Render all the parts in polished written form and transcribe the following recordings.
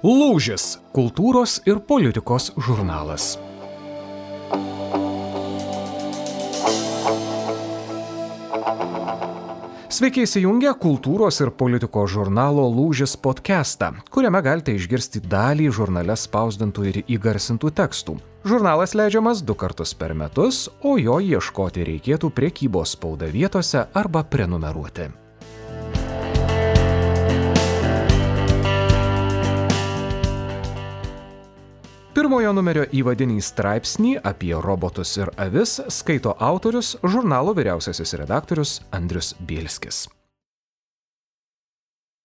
Lūžis – kultūros ir politikos žurnalas. Sveiki įsijungę kultūros ir politikos žurnalo Lūžis podcastą, kuriame galite išgirsti dalį žurnale spausdintų ir įgarsintų tekstų. Žurnalas leidžiamas 2 kartus per metus, o jo ieškoti reikėtų prekybos spauda vietose arba prenumeruoti. Pirmojo numerio įvadinį straipsnį apie robotus ir avis skaito autorius, žurnalo vyriausiasis redaktorius Andrius Bielskis.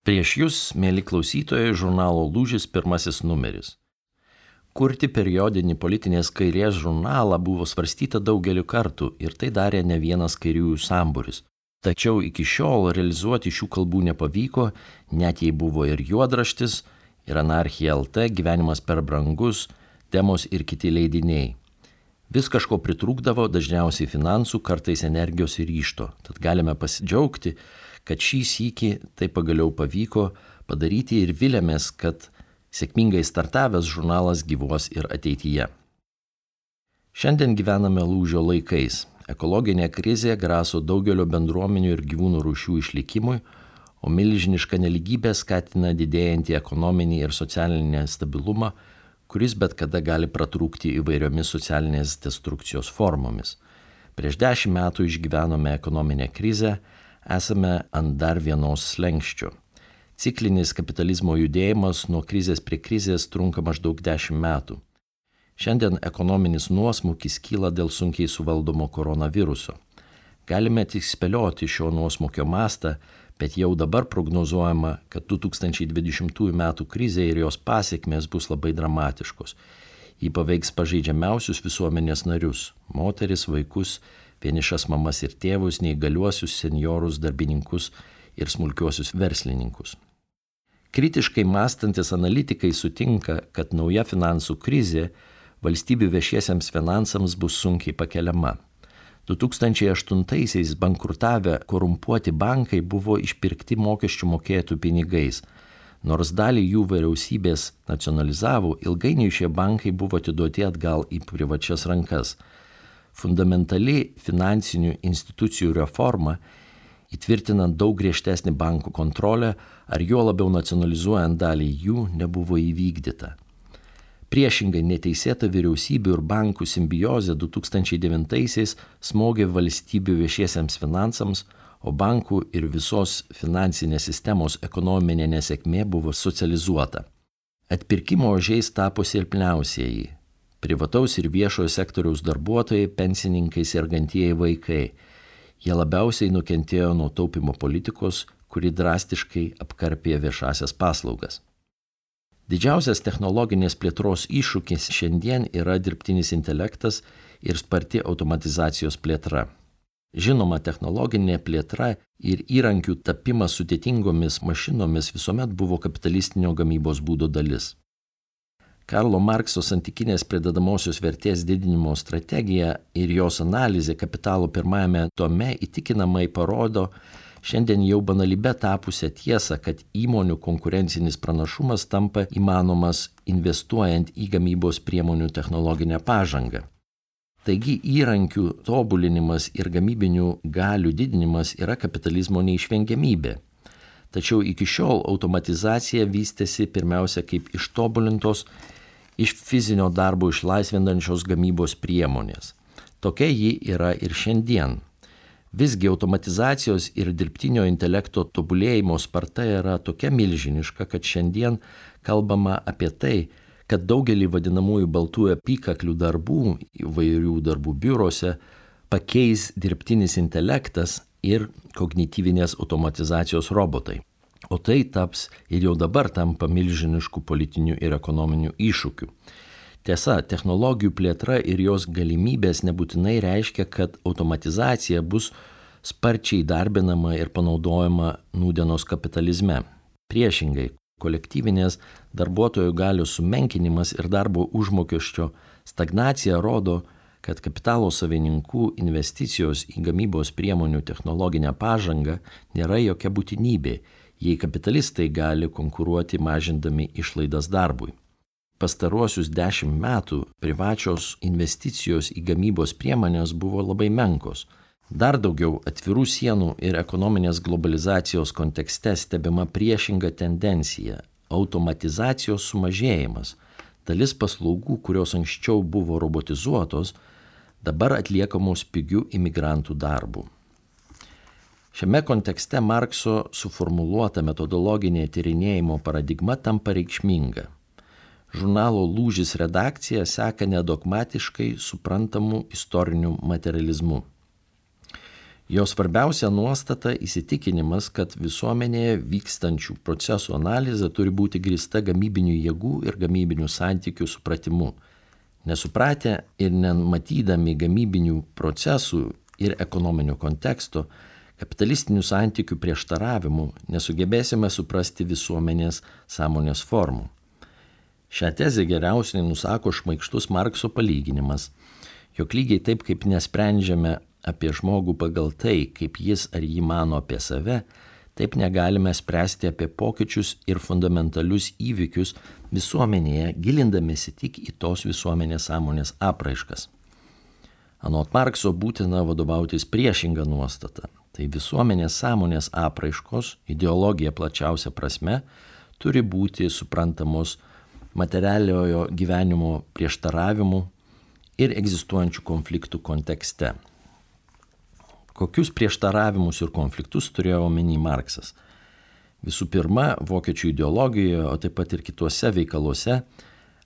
Prieš jūs, mėly klausytojai, žurnalo Lūžis pirmasis numeris. Kurti periodinį politinės kairės žurnalą buvo svarstyta daugeliu kartų ir tai darė ne vienas kairiųjų sambūris. Tačiau iki šiol realizuoti šių kalbų nepavyko, net jei buvo ir juodraštis, ir Anarchija LT, Gyvenimas per brangus, Temos ir kiti leidiniai. Vis kažko pritrūkdavo, dažniausiai finansų, kartais energijos ir ryžto. Tad galime pasidžiaugti, kad šį sykį tai pagaliau pavyko padaryti ir vilėmės, kad sėkmingai startavęs žurnalas gyvuos ir ateityje. Šiandien gyvename lūžio laikais. Ekologinė krizė graso daugelio bendruomenių ir gyvūnų rūšių išlikimui, o milžiniška nelygybė skatina didėjantį ekonominį ir socialinį stabilumą, kuris bet kada gali pratrūkti įvairiomis socialinės destrukcijos formomis. Prieš 10 metų išgyvenome ekonominę krizę, esame ant dar vienos slenksčio. Ciklinis kapitalizmo judėjimas nuo krizės prie krizės trunka maždaug 10 metų. Šiandien ekonominis nuosmukis kyla dėl sunkiai suvaldomo koronaviruso. Galime tik spėlioti šio nuosmukio mastą, bet jau dabar prognozuojama, kad 2020 metų krizė ir jos pasekmės bus labai dramatiškos. Ji paveiks pažeidžiamiausius visuomenės narius – moteris, vaikus, vienišas mamas ir tėvus, neįgaliuosius, senjorus, darbininkus ir smulkiuosius verslininkus. Kritiškai mąstantis analitikai sutinka, kad nauja finansų krizė valstybių viešiesiems finansams bus sunkiai pakeliama. 2008-aisiais bankrutavę korumpuoti bankai buvo išpirkti mokesčių mokėtojų pinigais. Nors dalį jų vyriausybės nacionalizavo, ilgainiui šie bankai buvo atiduoti atgal į privačias rankas. Fundamentali finansinių institucijų reforma, įtvirtinant daug griežtesnį bankų kontrolę ar juo labiau nacionalizuojant dalį jų, nebuvo įvykdyta. Priešingai neteisėta vyriausybių ir bankų simbiozė 2009-aisiais smogė valstybių viešiesiems finansams, o bankų ir visos finansinės sistemos ekonominė nesėkmė buvo socializuota. Atpirkimo ožiais tapo silpniausieji – privataus ir viešojo sektoriaus darbuotojai, pensininkai, sergantieji vaikai. Jie labiausiai nukentėjo nuo taupimo politikos, kuri drastiškai apkarpė viešasias paslaugas. Didžiausias technologinės plėtros iššūkis šiandien yra dirbtinis intelektas ir sparti automatizacijos plėtra. Žinoma, technologinė plėtra ir įrankių tapimas sudėtingomis mašinomis visuomet buvo kapitalistinio gamybos būdo dalis. Karlo Markso santykinės pridedamosios vertės didinimo strategija ir jos analizė Kapitalo pirmajame tome įtikinamai parodo šiandien jau banalybė tapusią tiesą, kad įmonių konkurencinis pranašumas tampa įmanomas investuojant į gamybos priemonių technologinę pažangą. Taigi įrankių tobulinimas ir gamybinių galių didinimas yra kapitalizmo neišvengiamybė. Tačiau iki šiol automatizacija vystėsi pirmiausia kaip ištobulintos, iš fizinio darbo išlaisvinančios gamybos priemonės. Tokia ji yra ir šiandien. Visgi automatizacijos ir dirbtinio intelekto tobulėjimo sparta yra tokia milžiniška, kad šiandien kalbama apie tai, kad daugelį vadinamųjų baltųjų apykaklių darbų įvairių darbų biurose pakeis dirbtinis intelektas ir kognityvinės automatizacijos robotai. O tai taps ir jau dabar tampa milžiniškų politinių ir ekonominių iššūkių. Tiesa, technologijų plėtra ir jos galimybės nebūtinai reiškia, kad automatizacija bus sparčiai darbinama ir panaudojama nūdienos kapitalizme. Priešingai, kolektyvinės darbuotojų galių sumenkinimas ir darbo užmokesčio stagnacija rodo, kad kapitalo savininkų investicijos į gamybos priemonių technologinę pažangą nėra jokia būtinybė, jei kapitalistai gali konkuruoti mažindami išlaidas darbui. Pastaruosius 10 metų privačios investicijos į gamybos priemonės buvo labai menkos. Dar daugiau atvirų sienų ir ekonominės globalizacijos kontekste stebima priešinga tendencija – automatizacijos sumažėjimas. Dalis paslaugų, kurios anksčiau buvo robotizuotos, dabar atliekamos pigių imigrantų darbų. Šiame kontekste Markso suformuluota metodologinė tyrinėjimo paradigma tampa reikšminga. Žurnalo Lūžis redakcija seka nedogmatiškai suprantamų istorinių materializmų. Jo svarbiausia nuostata įsitikinimas, kad visuomenėje vykstančių procesų analizė turi būti grįsta gamybinių jėgų ir gamybinių santykių supratimu. Nesupratę ir nematydami gamybinių procesų ir ekonominio konteksto, kapitalistinių santykių prieštaravimų nesugebėsime suprasti visuomenės sąmonės formų. Šią tezę geriausiai nusako šmaikštus Markso palyginimas, jog lygiai taip kaip nesprendžiame apie žmogų pagal tai, kaip jis ar ji mano apie save, taip negalime spręsti apie pokyčius ir fundamentalius įvykius visuomenėje, gilindamiesi tik į tos visuomenės sąmonės apraiškas. Anot Markso būtina vadovautis priešinga nuostata. Tai visuomenės sąmonės apraiškos, ideologija plačiausia prasme, turi būti suprantamos materialiojo gyvenimo prieštaravimų ir egzistuojančių konfliktų kontekste. Kokius prieštaravimus ir konfliktus turėjo omeny Marksas? Visų pirma, vokiečių ideologijoje, o taip pat ir kituose veikaluose,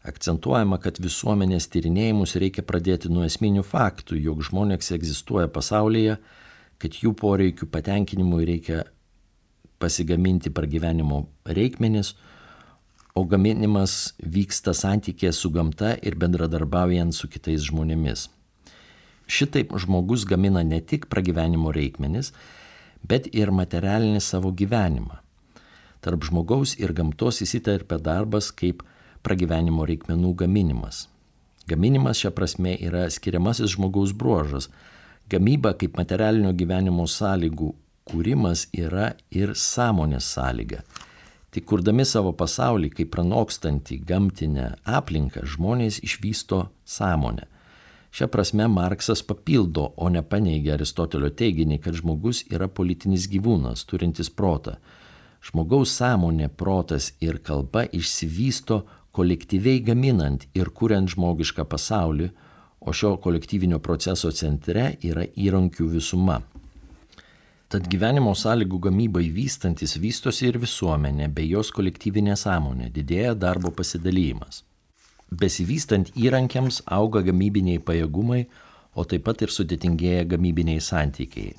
akcentuojama, kad visuomenės tyrinėjimus reikia pradėti nuo esminių faktų, jog žmonės egzistuoja pasaulyje, kad jų poreikių patenkinimui reikia pasigaminti pragyvenimo reikmenis, o gaminimas vyksta santykėje su gamta ir bendradarbiaujant su kitais žmonėmis. Šitaip žmogus gamina ne tik pragyvenimo reikmenis, bet ir materialinį savo gyvenimą. Tarp žmogaus ir gamtos įsiterpia darbas kaip pragyvenimo reikmenų gaminimas. Gaminimas šia prasme yra skiriamasis žmogaus bruožas. Gamyba kaip materialinio gyvenimo sąlygų kūrimas yra ir sąmonės sąlyga. Tik kurdami savo pasaulį kaip pranokstantį gamtinę aplinką, žmonės išvysto sąmonę. Šia prasme Marksas papildo, o ne paneigia Aristotelio teiginį, kad žmogus yra politinis gyvūnas, turintis protą. Žmogaus sąmonė, protas ir kalba išsivysto kolektyviai gaminant ir kuriant žmogišką pasaulį, o šio kolektyvinio proceso centre yra įrankių visuma. Tad gyvenimo sąlygų gamybai vystantis vystosi ir visuomenė, bei jos kolektyvinė sąmonė, didėja darbo pasidalymas. Besivystant įrankiams auga gamybiniai pajėgumai, o taip pat ir sudėtingėja gamybiniai santykiai.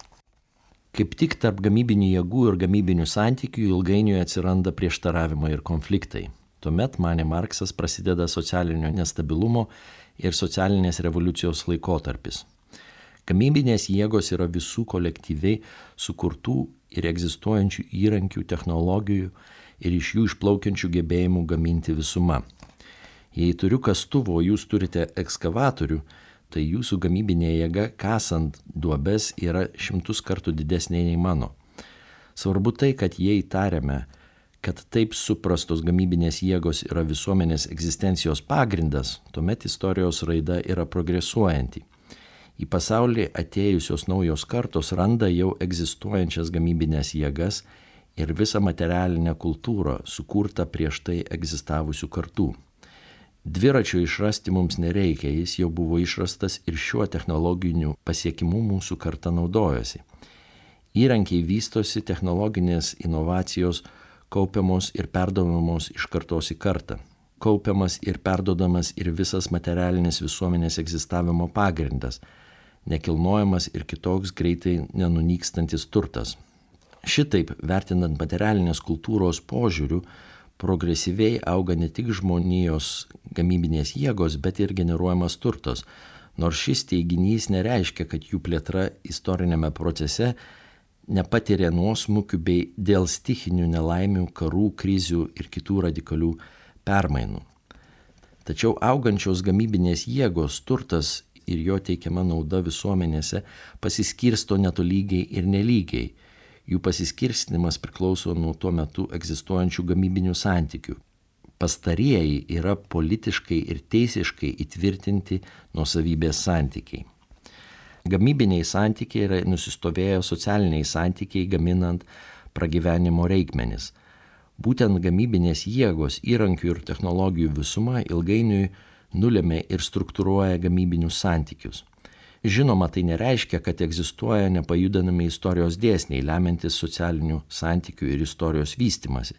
Kaip tik tarp gamybinių jėgų ir gamybinių santykių ilgainiui atsiranda prieštaravimai ir konfliktai. Tuomet, manė Marksas, prasideda socialinio nestabilumo ir socialinės revoliucijos laikotarpis. Gamybinės jėgos yra visų kolektyviai sukurtų ir egzistuojančių įrankių, technologijų ir iš jų išplaukiančių gebėjimų gaminti visuma. Jei turiu kastuvą, o jūs turite ekskavatorių, tai jūsų gamybinė jėga kasant duobes yra 100 kartų didesnė nei mano. Svarbu tai, kad jei tariame, kad taip suprastos gamybinės jėgos yra visuomenės egzistencijos pagrindas, tuomet istorijos raida yra progresuojanti. Į pasaulį atėjusios naujos kartos randa jau egzistuojančias gamybinės jėgas ir visą materialinę kultūrą sukurtą prieš tai egzistavusių kartų. Dviračio išrasti mums nereikia, jis jau buvo išrastas ir šiuo technologiniu pasiekimu mūsų karta naudojosi. Įrankiai vystosi, technologinės inovacijos kaupiamos ir perduodamos iš kartos į kartą. Kaupiamas ir perduodamas ir visas materialinis visuomenės egzistavimo pagrindas, nekilnojamas ir kitoks greitai nenunykstantis turtas. Šitaip, vertinant materialinės kultūros požiūrių, progresyviai auga ne tik žmonijos gamybinės jėgos, bet ir generuojamas turtas, nors šis teiginys nereiškia, kad jų plėtra istorinėme procese nepatiria nuosmukių bei dėl stichinių nelaimių, karų, krizių ir kitų radikalių permainų. Tačiau augančios gamybinės jėgos, turtas ir jo teikiama nauda visuomenėse pasiskirsto netolygiai ir nelygiai. Jų pasiskirstymas priklauso nuo tuo metu egzistuojančių gamybinių santykių. Pastarieji yra politiškai ir teisiškai įtvirtinti nuosavybės santykiai. Gamybiniai santykiai yra nusistovėję socialiniai santykiai gaminant pragyvenimo reikmenis. Būtent gamybinės jėgos, įrankių ir technologijų visuma ilgainiui nulėmė ir struktūruoja gamybinius santykius. Žinoma, tai nereiškia, kad egzistuoja nepajudinami istorijos dėsniai, lemiantis socialinių santykių ir istorijos vystimasi.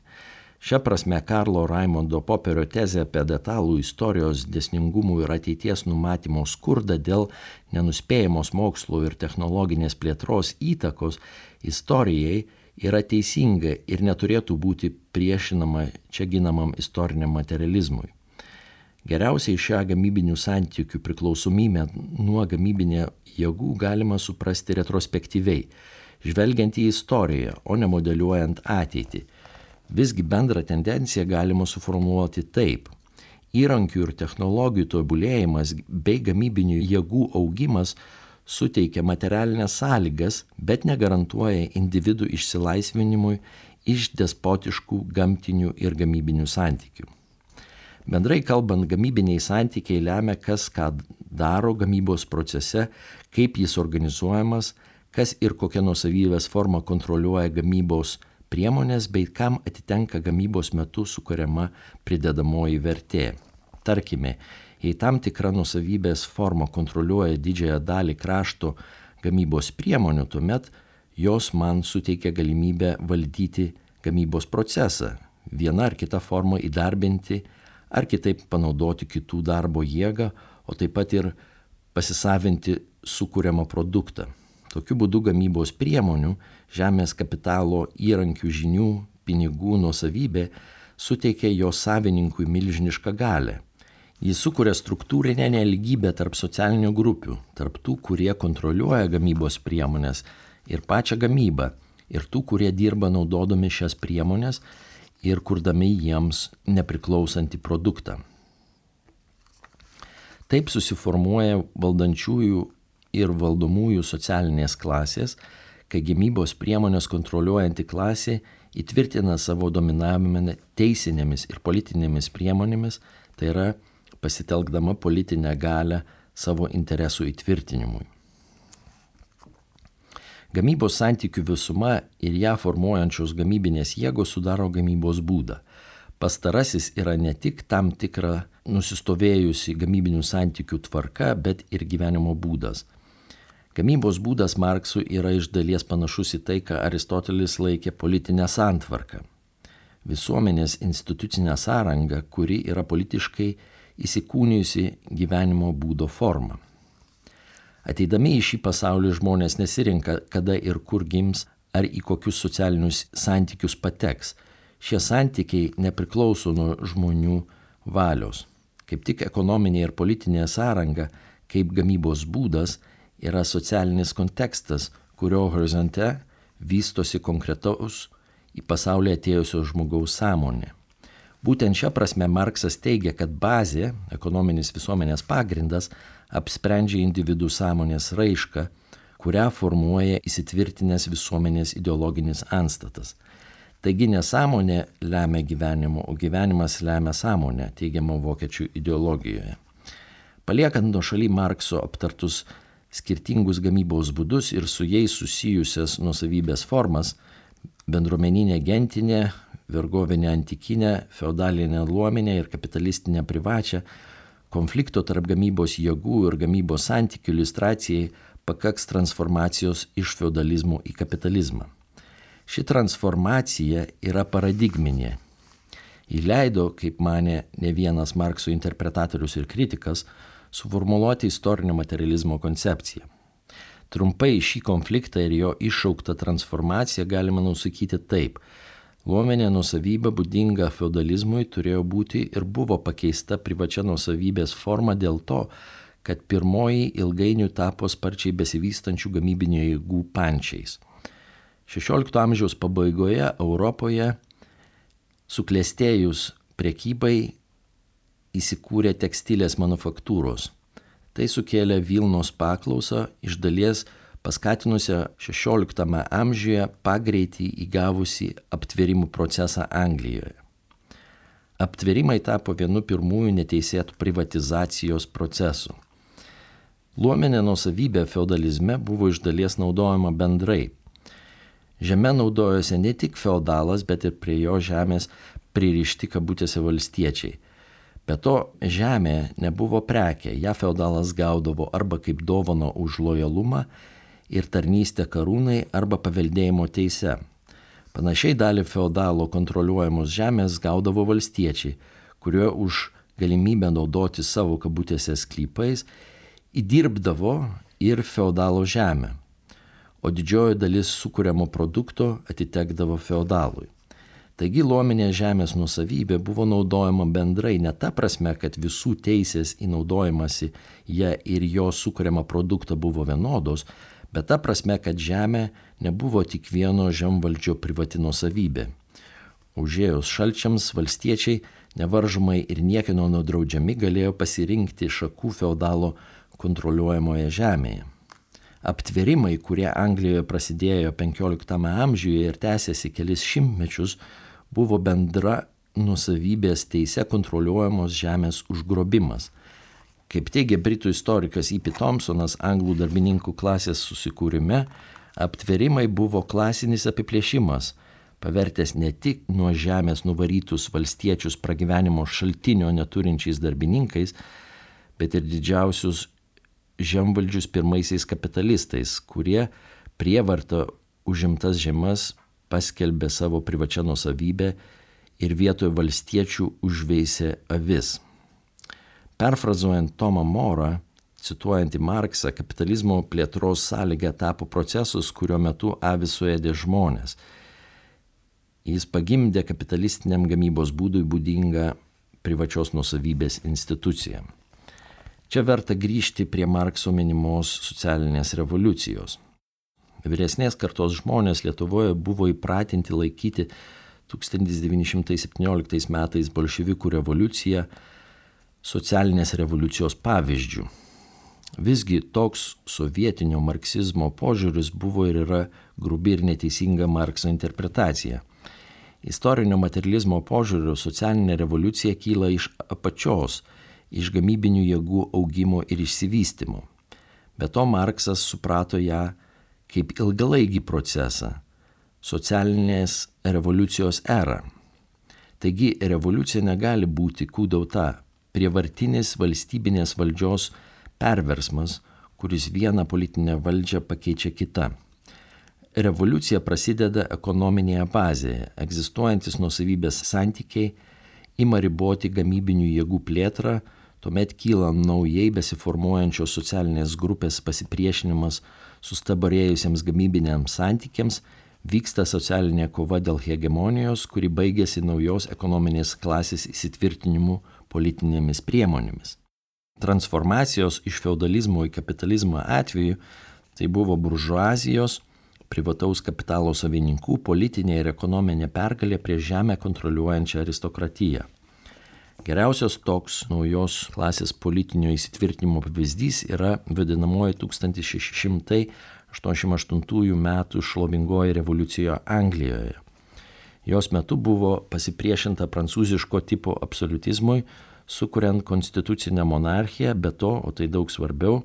Šia prasme, Karlo Raimondo Poperio tezė apie detalų istorijos dėsningumų ir ateities numatymo skurdą dėl nenuspėjamos mokslo ir technologinės plėtros įtakos istorijai yra teisinga ir neturėtų būti priešinama čia ginamam istoriniam materializmui. Geriausiai šią gamybinių santykių priklausomybę nuo gamybinė jėgų galima suprasti retrospektyviai, žvelgiant į istoriją, o ne modeliuojant ateitį. Visgi bendrą tendenciją galima suformuoluoti taip. Įrankių ir technologijų tobulėjimas bei gamybinių jėgų augimas suteikia materialinės sąlygas, bet negarantuoja individų išsilaisvinimui iš despotiškų gamtinių ir gamybinių santykių. Bendrai kalbant, gamybiniai santykiai lemia, kas ką daro gamybos procese, kaip jis organizuojamas, kas ir kokia nuosavybės forma kontroliuoja gamybos priemonės bei kam atitenka gamybos metu sukuriama pridedamoji vertė. Tarkime, jei tam tikra nuosavybės forma kontroliuoja didžiąją dalį krašto gamybos priemonių, tuomet jos man suteikia galimybę valdyti gamybos procesą, viena ar kita forma įdarbinti ar kitaip panaudoti kitų darbo jėgą, o taip pat ir pasisavinti sukuriamą produktą. Tokiu būdu gamybos priemonių, žemės kapitalo, įrankių, žinių, pinigų nuosavybė suteikia jo savininkui milžinišką galią. Jis sukuria struktūrinę nelygybę tarp socialinių grupių, tarp tų, kurie kontroliuoja gamybos priemonės ir pačią gamybą, ir tų, kurie dirba naudodami šias priemonės ir kurdami jiems nepriklausantį produktą. Taip susiformuoja valdančiųjų ir valdomųjų socialinės klasės, kai gamybos priemonės kontroliuojanti klasė įtvirtina savo dominavimą teisinėmis ir politinėmis priemonėmis, tai yra pasitelkdama politinę galią savo interesų įtvirtinimui. Gamybos santykių visuma ir ją formuojančios gamybinės jėgos sudaro gamybos būdą. Pastarasis yra ne tik tam tikra nusistovėjusi gamybinių santykių tvarka, bet ir gyvenimo būdas. Gamybos būdas Marksui yra iš dalies panašus į tai, ką Aristotelis laikė politinę santvarką. Visuomenės institucinę sąrangą, kuri yra politiškai įsikūnijusi gyvenimo būdo forma. Ateidami į šį pasaulį žmonės nesirinka, kada ir kur gims ar į kokius socialinius santykius pateks. Šie santykiai nepriklauso nuo žmonių valios. Kaip tik ekonominė ir politinė sąranga, kaip gamybos būdas, yra socialinis kontekstas, kurio horizonte vystosi konkretaus į pasaulį atėjusio žmogaus sąmonė. Būtent šią prasme Marksas teigia, kad bazė, ekonominis visuomenės pagrindas, apsprendžia individų sąmonės raišką, kurią formuoja įsitvirtinęs visuomenės ideologinis antstatas. Taigi nesąmonė lemia gyvenimo, o gyvenimas lemia sąmonę, teigiama vokiečių ideologijoje. Paliekant nuošaly Markso aptartus skirtingus gamybos būdus ir su jais susijusias nuosavybės formas, bendruomeninė gentinė, vergovinė antikinė, feudalinė luominė ir kapitalistinė privačią, konflikto tarp gamybos jėgų ir gamybos santykių iliustracijai pakaks transformacijos iš feudalizmo į kapitalizmą. Ši transformacija yra paradigminė. Ji leido, kaip manė ne vienas Markso interpretatorius ir kritikas, suformuluoti istorinio materializmo koncepciją. Trumpai šį konfliktą ir jo iššauktą transformaciją galima nusakyti taip. Luominė nuosavybė būdinga feudalizmui turėjo būti ir buvo pakeista privačia nuosavybės forma dėl to, kad pirmoji ilgainiui tapo sparčiai besivystančių gamybinių jėgų pančiais. 16 amžiaus pabaigoje Europoje suklestėjus prekybai įsikūrė tekstilės manufaktūros. Tai sukėlė Vilnos paklausą, iš dalies paskatinusią XVI amžiuje pagreitį įgavusi aptvėrimų procesą Anglijoje. Aptvėrimai tapo vienu pirmųjų neteisėtų privatizacijos procesų. Luominė nuosavybė feudalizme buvo iš dalies naudojama bendrai. Žeme naudojosi ne tik feudalas, bet ir prie jo žemės pririšti kabutėse valstiečiai. Be to, žemė nebuvo prekė, ją feudalas gaudavo arba kaip dovano už lojalumą ir tarnystę karūnai arba paveldėjimo teise. Panašiai dalį feudalo kontroliuojamos žemės gaudavo valstiečiai, kurie už galimybę naudoti savo kabutėse sklypais įdirbdavo ir feudalo žemę, o didžioji dalis sukuriamo produkto atitekdavo feudalui. Taigi luominė žemės nuosavybė buvo naudojama bendrai ne ta prasme, kad visų teisės į naudojimąsi ją ir jo sukuriamą produktą buvo vienodos, bet ta prasme, kad žemė nebuvo tik vieno žemvaldžio privati nuosavybė. Užėjus šalčiams valstiečiai nevaržomai ir niekieno nedraudžiami galėjo pasirinkti šakų feudalo kontroliuojamoje žemėje. Aptvėrimai, kurie Anglijoje prasidėjo XV amžiuje ir tęsėsi kelis šimtmečius, buvo bendra nuosavybės teise kontroliuojamos žemės užgrobimas. Kaip teigia britų istorikas E.P. Thompsonas anglų darbininkų klasės susikūrime, aptvėrimai buvo klasinis apiplėšimas, pavertęs ne tik nuo žemės nuvarytus valstiečius pragyvenimo šaltinio neturinčiais darbininkais, bet ir didžiausius žemvaldžius pirmaisiais kapitalistais, kurie prievarta užimtas žemas paskelbė savo privačią nuosavybę ir vietoje valstiečių užveisė avis. Perfrazuojant Tomą Morą, cituojant į Marksą, kapitalizmo plėtros sąlyga tapo procesus, kurio metu avis suėdė žmonės. Jis pagimdė kapitalistiniam gamybos būdui būdingą privačios nuosavybės instituciją. Čia verta grįžti prie Markso minimos socialinės revoliucijos. Vyresnės kartos žmonės Lietuvoje buvo įpratinti laikyti 1917 metais bolševikų revoliuciją socialinės revoliucijos pavyzdžių. Visgi toks sovietinio marksizmo požiūris buvo ir yra grubi ir neteisinga Markso interpretacija. Istorinio materializmo požiūriu socialinė revoliucija kyla iš apačios, iš gamybinių jėgų augimo ir išsivystymo. Be to Marksas suprato ją kaip ilgalaikį procesą, socialinės revoliucijos erą. Taigi revoliucija negali būti kūdauta, prievartinis valstybinės valdžios perversmas, kuris vieną politinę valdžią pakeičia kitą. Revoliucija prasideda ekonominėje bazėje, egzistuojantis nuosavybės santykiai ima riboti gamybinių jėgų plėtrą, tuomet kyla naujai besiformuojančios socialinės grupės pasipriešinimas sustabarėjusiems gamybiniams santykiams, vyksta socialinė kova dėl hegemonijos, kuri baigėsi naujos ekonominės klasės įsitvirtinimu politinėmis priemonėmis. Transformacijos iš feudalizmo į kapitalizmą atveju tai buvo buržuazijos, privataus kapitalo savininkų politinė ir ekonominė pergalė prieš žemę kontroliuojančią aristokratiją. Geriausias toks naujos klasės politinio įsitvirtinimo pavyzdys yra vadinamoji 1688 metų šlovingoji revoliucija Anglijoje. Jos metu buvo pasipriešinta prancūziško tipo absoliutizmui, sukuriant konstitucinę monarchiją, be to, o tai daug svarbiau,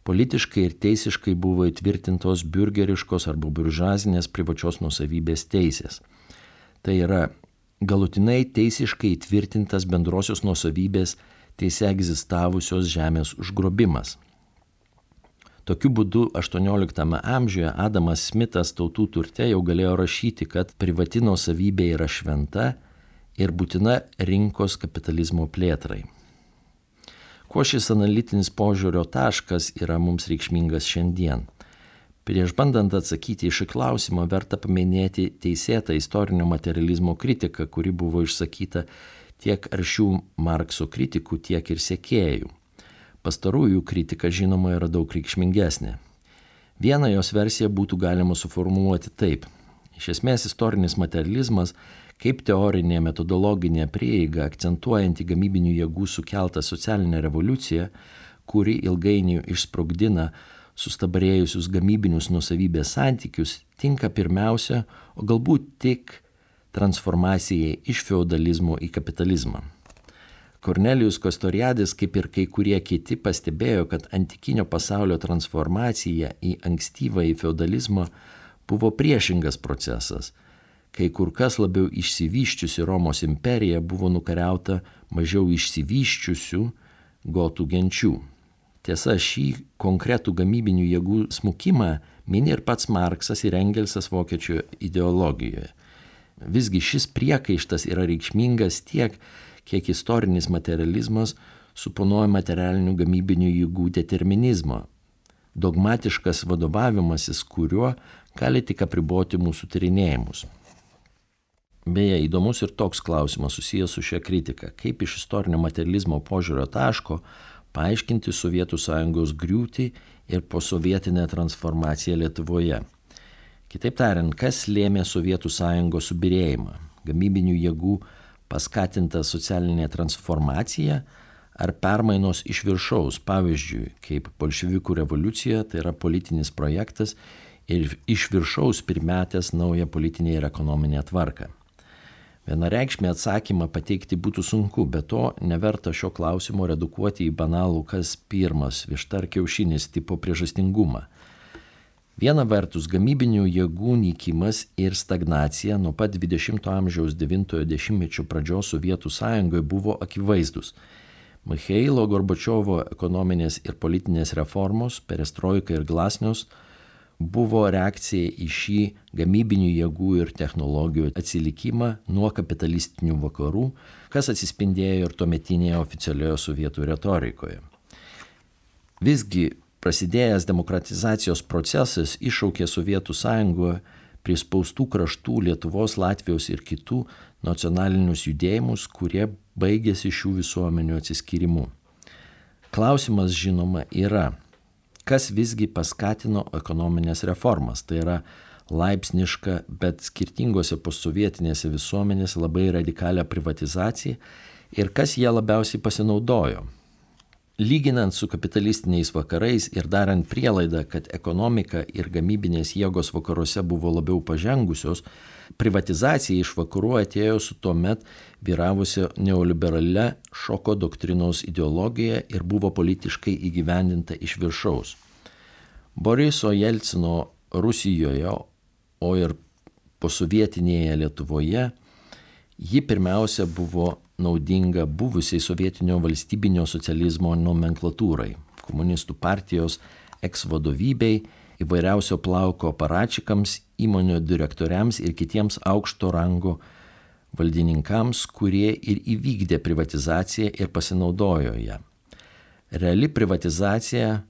politiškai ir teisiškai buvo įtvirtintos biurgeriškos arba buržuazinės privačios nuosavybės teisės. Tai yra galutinai teisiškai įtvirtintas bendrosios nuosavybės teise egzistavusios žemės užgrobimas. Tokiu būdu 18 amžiuje Adamas Smithas Tautų turte jau galėjo rašyti, kad privati nuosavybė yra šventa ir būtina rinkos kapitalizmo plėtrai. Kuo šis analitinis požiūrio taškas yra mums reikšmingas šiandien? Prieš bandant atsakyti į šį klausimą, verta paminėti teisėtą istorinio materializmo kritiką, kuri buvo išsakyta tiek aršių Markso kritikų, tiek ir sekėjų. Pastarųjų kritika, žinoma, yra daug reikšmingesnė. Vieną jos versiją būtų galima suformuluoti taip. Iš esmės, istorinis materializmas kaip teorinė metodologinė prieiga akcentuojanti gamybinių jėgų sukeltą socialinę revoliuciją, kuri ilgainiui išsprogdina sustabarėjusius gamybinius nuosavybės santykius tinka pirmiausia, o galbūt tik transformacijai iš feudalizmo į kapitalizmą. Kornelijus Kastoriadis, kaip ir kai kurie kiti, pastebėjo, kad antikinio pasaulio transformacija į ankstyvąjį feudalizmą buvo priešingas procesas, kai kur kas labiau išsivysčiusi Romos imperija buvo nukariauta mažiau išsivysčiusių gotų genčių. Tiesa, šį konkretų gamybinių jėgų smukimą mini ir pats Marksas ir Engelsas vokiečių ideologijoje. Visgi šis priekaištas yra reikšmingas tiek, kiek istorinis materializmas suponuoja materialinių gamybinių jėgų determinizmą, dogmatiškas vadovavimasis, kuriuo gali tik apriboti mūsų tyrinėjimus. Beje, įdomus ir toks klausimas susijęs su šia kritika, kaip iš istorinio materializmo požiūrio taško paaiškinti Sovietų Sąjungos griūtį ir posovietinę transformaciją Lietuvoje. Kitaip tariant, kas lėmė Sovietų Sąjungos subyrėjimą? Gamybinių jėgų paskatinta socialinė transformacija ar permainos iš viršaus, pavyzdžiui, kaip bolševikų revoliucija, tai yra politinis projektas ir iš viršaus primetęs naują politinę ir ekonominę tvarką. Vienareikšmį atsakymą pateikti būtų sunku, bet to neverta šio klausimo redukuoti į banalų kas pirmas, višta ar kiaušinis tipo priežastingumą. Viena vertus, gamybinių jėgų nykimas ir stagnacija nuo pat 20-ojo amžiaus 90-ojo dešimtmečio pradžios Sovietų Sąjungoje buvo akivaizdus. Michailo Gorbačiovo ekonominės ir politinės reformos, perestroika ir glasnios, buvo reakcija į šį gamybinių jėgų ir technologijų atsilikimą nuo kapitalistinių vakarų, kas atsispindėjo ir tuometinėje oficialioje sovietų retorikoje. Visgi, prasidėjęs demokratizacijos procesas iššaukė Sovietų Sąjungoje prispaustų kraštų Lietuvos, Latvijos ir kitų nacionalinius judėjimus, kurie baigėsi šių visuomenių atsiskyrimu. Klausimas, žinoma, yra, kas visgi paskatino ekonominės reformas, tai yra laipsniška, bet skirtingose postsovietinėse visuomenėse labai radikalią privatizaciją ir kas jie labiausiai pasinaudojo. Lyginant su kapitalistiniais vakarais ir darant prielaidą, kad ekonomika ir gamybinės jėgos vakaruose buvo labiau pažengusios, privatizacija iš vakarų atėjo su tuomet vyravusia neoliberalia šoko doktrinos ideologija ir buvo politiškai įgyvendinta iš viršaus. Boriso Jelcino Rusijoje, o ir posovietinėje Lietuvoje, ji pirmiausia buvo naudinga buvusiai sovietinio valstybinio socializmo nomenklatūrai, komunistų partijos eks-vadovybei, įvairiausio plauko aparačikams, įmonių direktoriams ir kitiems aukšto rango valdininkams, kurie ir įvykdė privatizaciją ir pasinaudojo ją. Reali privatizacija,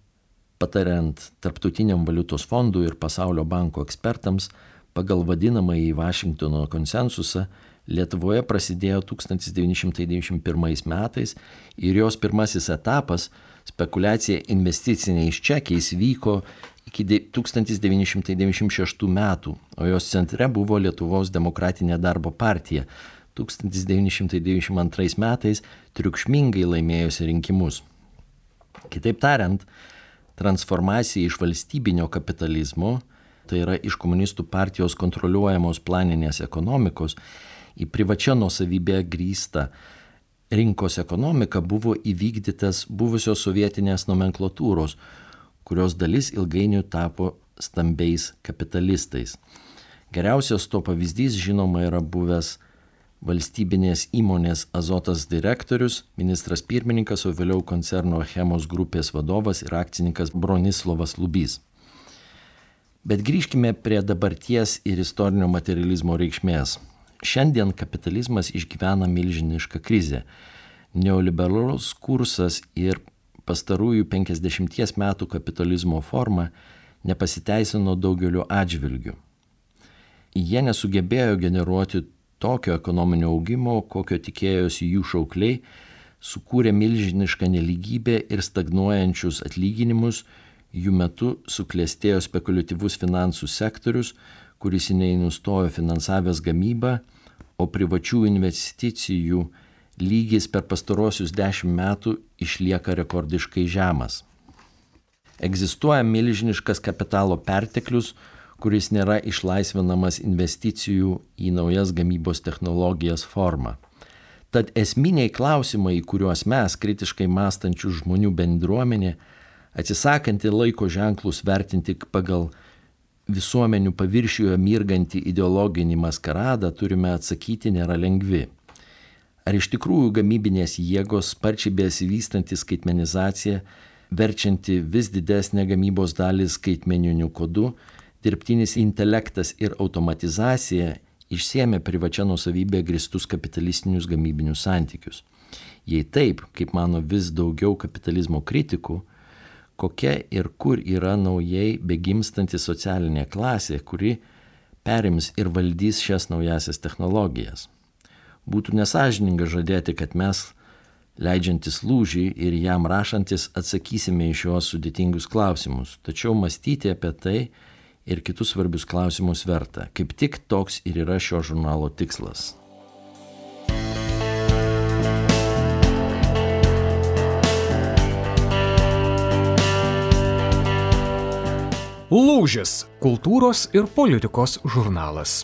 patariant Tarptautiniam valiutos fondui ir Pasaulio banko ekspertams, pagal vadinamąjį Vašingtono konsensusą, Lietuvoje prasidėjo 1991 metais ir jos pirmasis etapas, spekulacija investiciniais čekiais, vyko iki 1996 metų, o jos centre buvo Lietuvos demokratinė darbo partija, 1992 metais triukšmingai laimėjusi rinkimus. Kitaip tariant, transformacija iš valstybinio kapitalizmo, tai yra iš komunistų partijos kontroliuojamos planinės ekonomikos, į privačią nuosavybę grįstą rinkos ekonomiką buvo įvykdytas buvusios sovietinės nomenklatūros, kurios dalis ilgainiui tapo stambiais kapitalistais. Geriausias to pavyzdys, žinoma, yra buvęs valstybinės įmonės Azotas direktorius, ministras pirmininkas, o vėliau koncerno Achemos grupės vadovas ir akcininkas Bronislovas Lubys. Bet grįžkime prie dabarties ir istorinio materializmo reikšmės. Šiandien kapitalizmas išgyvena milžinišką krizę. Neoliberalus kursas ir pastarųjų 50 metų kapitalizmo forma nepasiteisino daugeliu atžvilgių. Jie nesugebėjo generuoti tokio ekonominio augimo, kokio tikėjosi jų šaukliai, sukūrė milžinišką nelygybę ir stagnuojančius atlyginimus, jų metu suklestėjo spekuliatyvus finansų sektorius, kuris nenustojo finansavęs gamybą, o privačių investicijų lygis per pastarosius 10 metų išlieka rekordiškai žemas. Egzistuoja milžiniškas kapitalo perteklius, kuris nėra išlaisvinamas investicijų į naujas gamybos technologijas forma. Tad esminiai klausimai, į kuriuos mes, kritiškai mąstančių žmonių bendruomenė, atsisakanti laiko ženklus vertinti pagal visuomenių paviršiuje mirgantį ideologinį maskaradą, turime atsakyti nėra lengvi. Ar iš tikrųjų gamybinės jėgos, sparčiai besivystanti skaitmenizacija, verčianti vis didesnę gamybos dalį skaitmeniniu kodu, dirbtinis intelektas ir automatizacija išsiėmė privačia nuosavybė grįstus kapitalistinius gamybinius santykius? Jei taip, kaip mano vis daugiau kapitalizmo kritikų, kokia ir kur yra naujai begimstanti socialinė klasė, kuri perims ir valdys šias naujasias technologijas? Būtų nesąžininga žadėti, kad mes, leidžiantis lūžį ir jam rašantis, atsakysime į šiuos sudėtingus klausimus, tačiau mąstyti apie tai ir kitus svarbius klausimus verta. Kaip tik toks ir yra šio žurnalo tikslas. Lūžis – kultūros ir politikos žurnalas.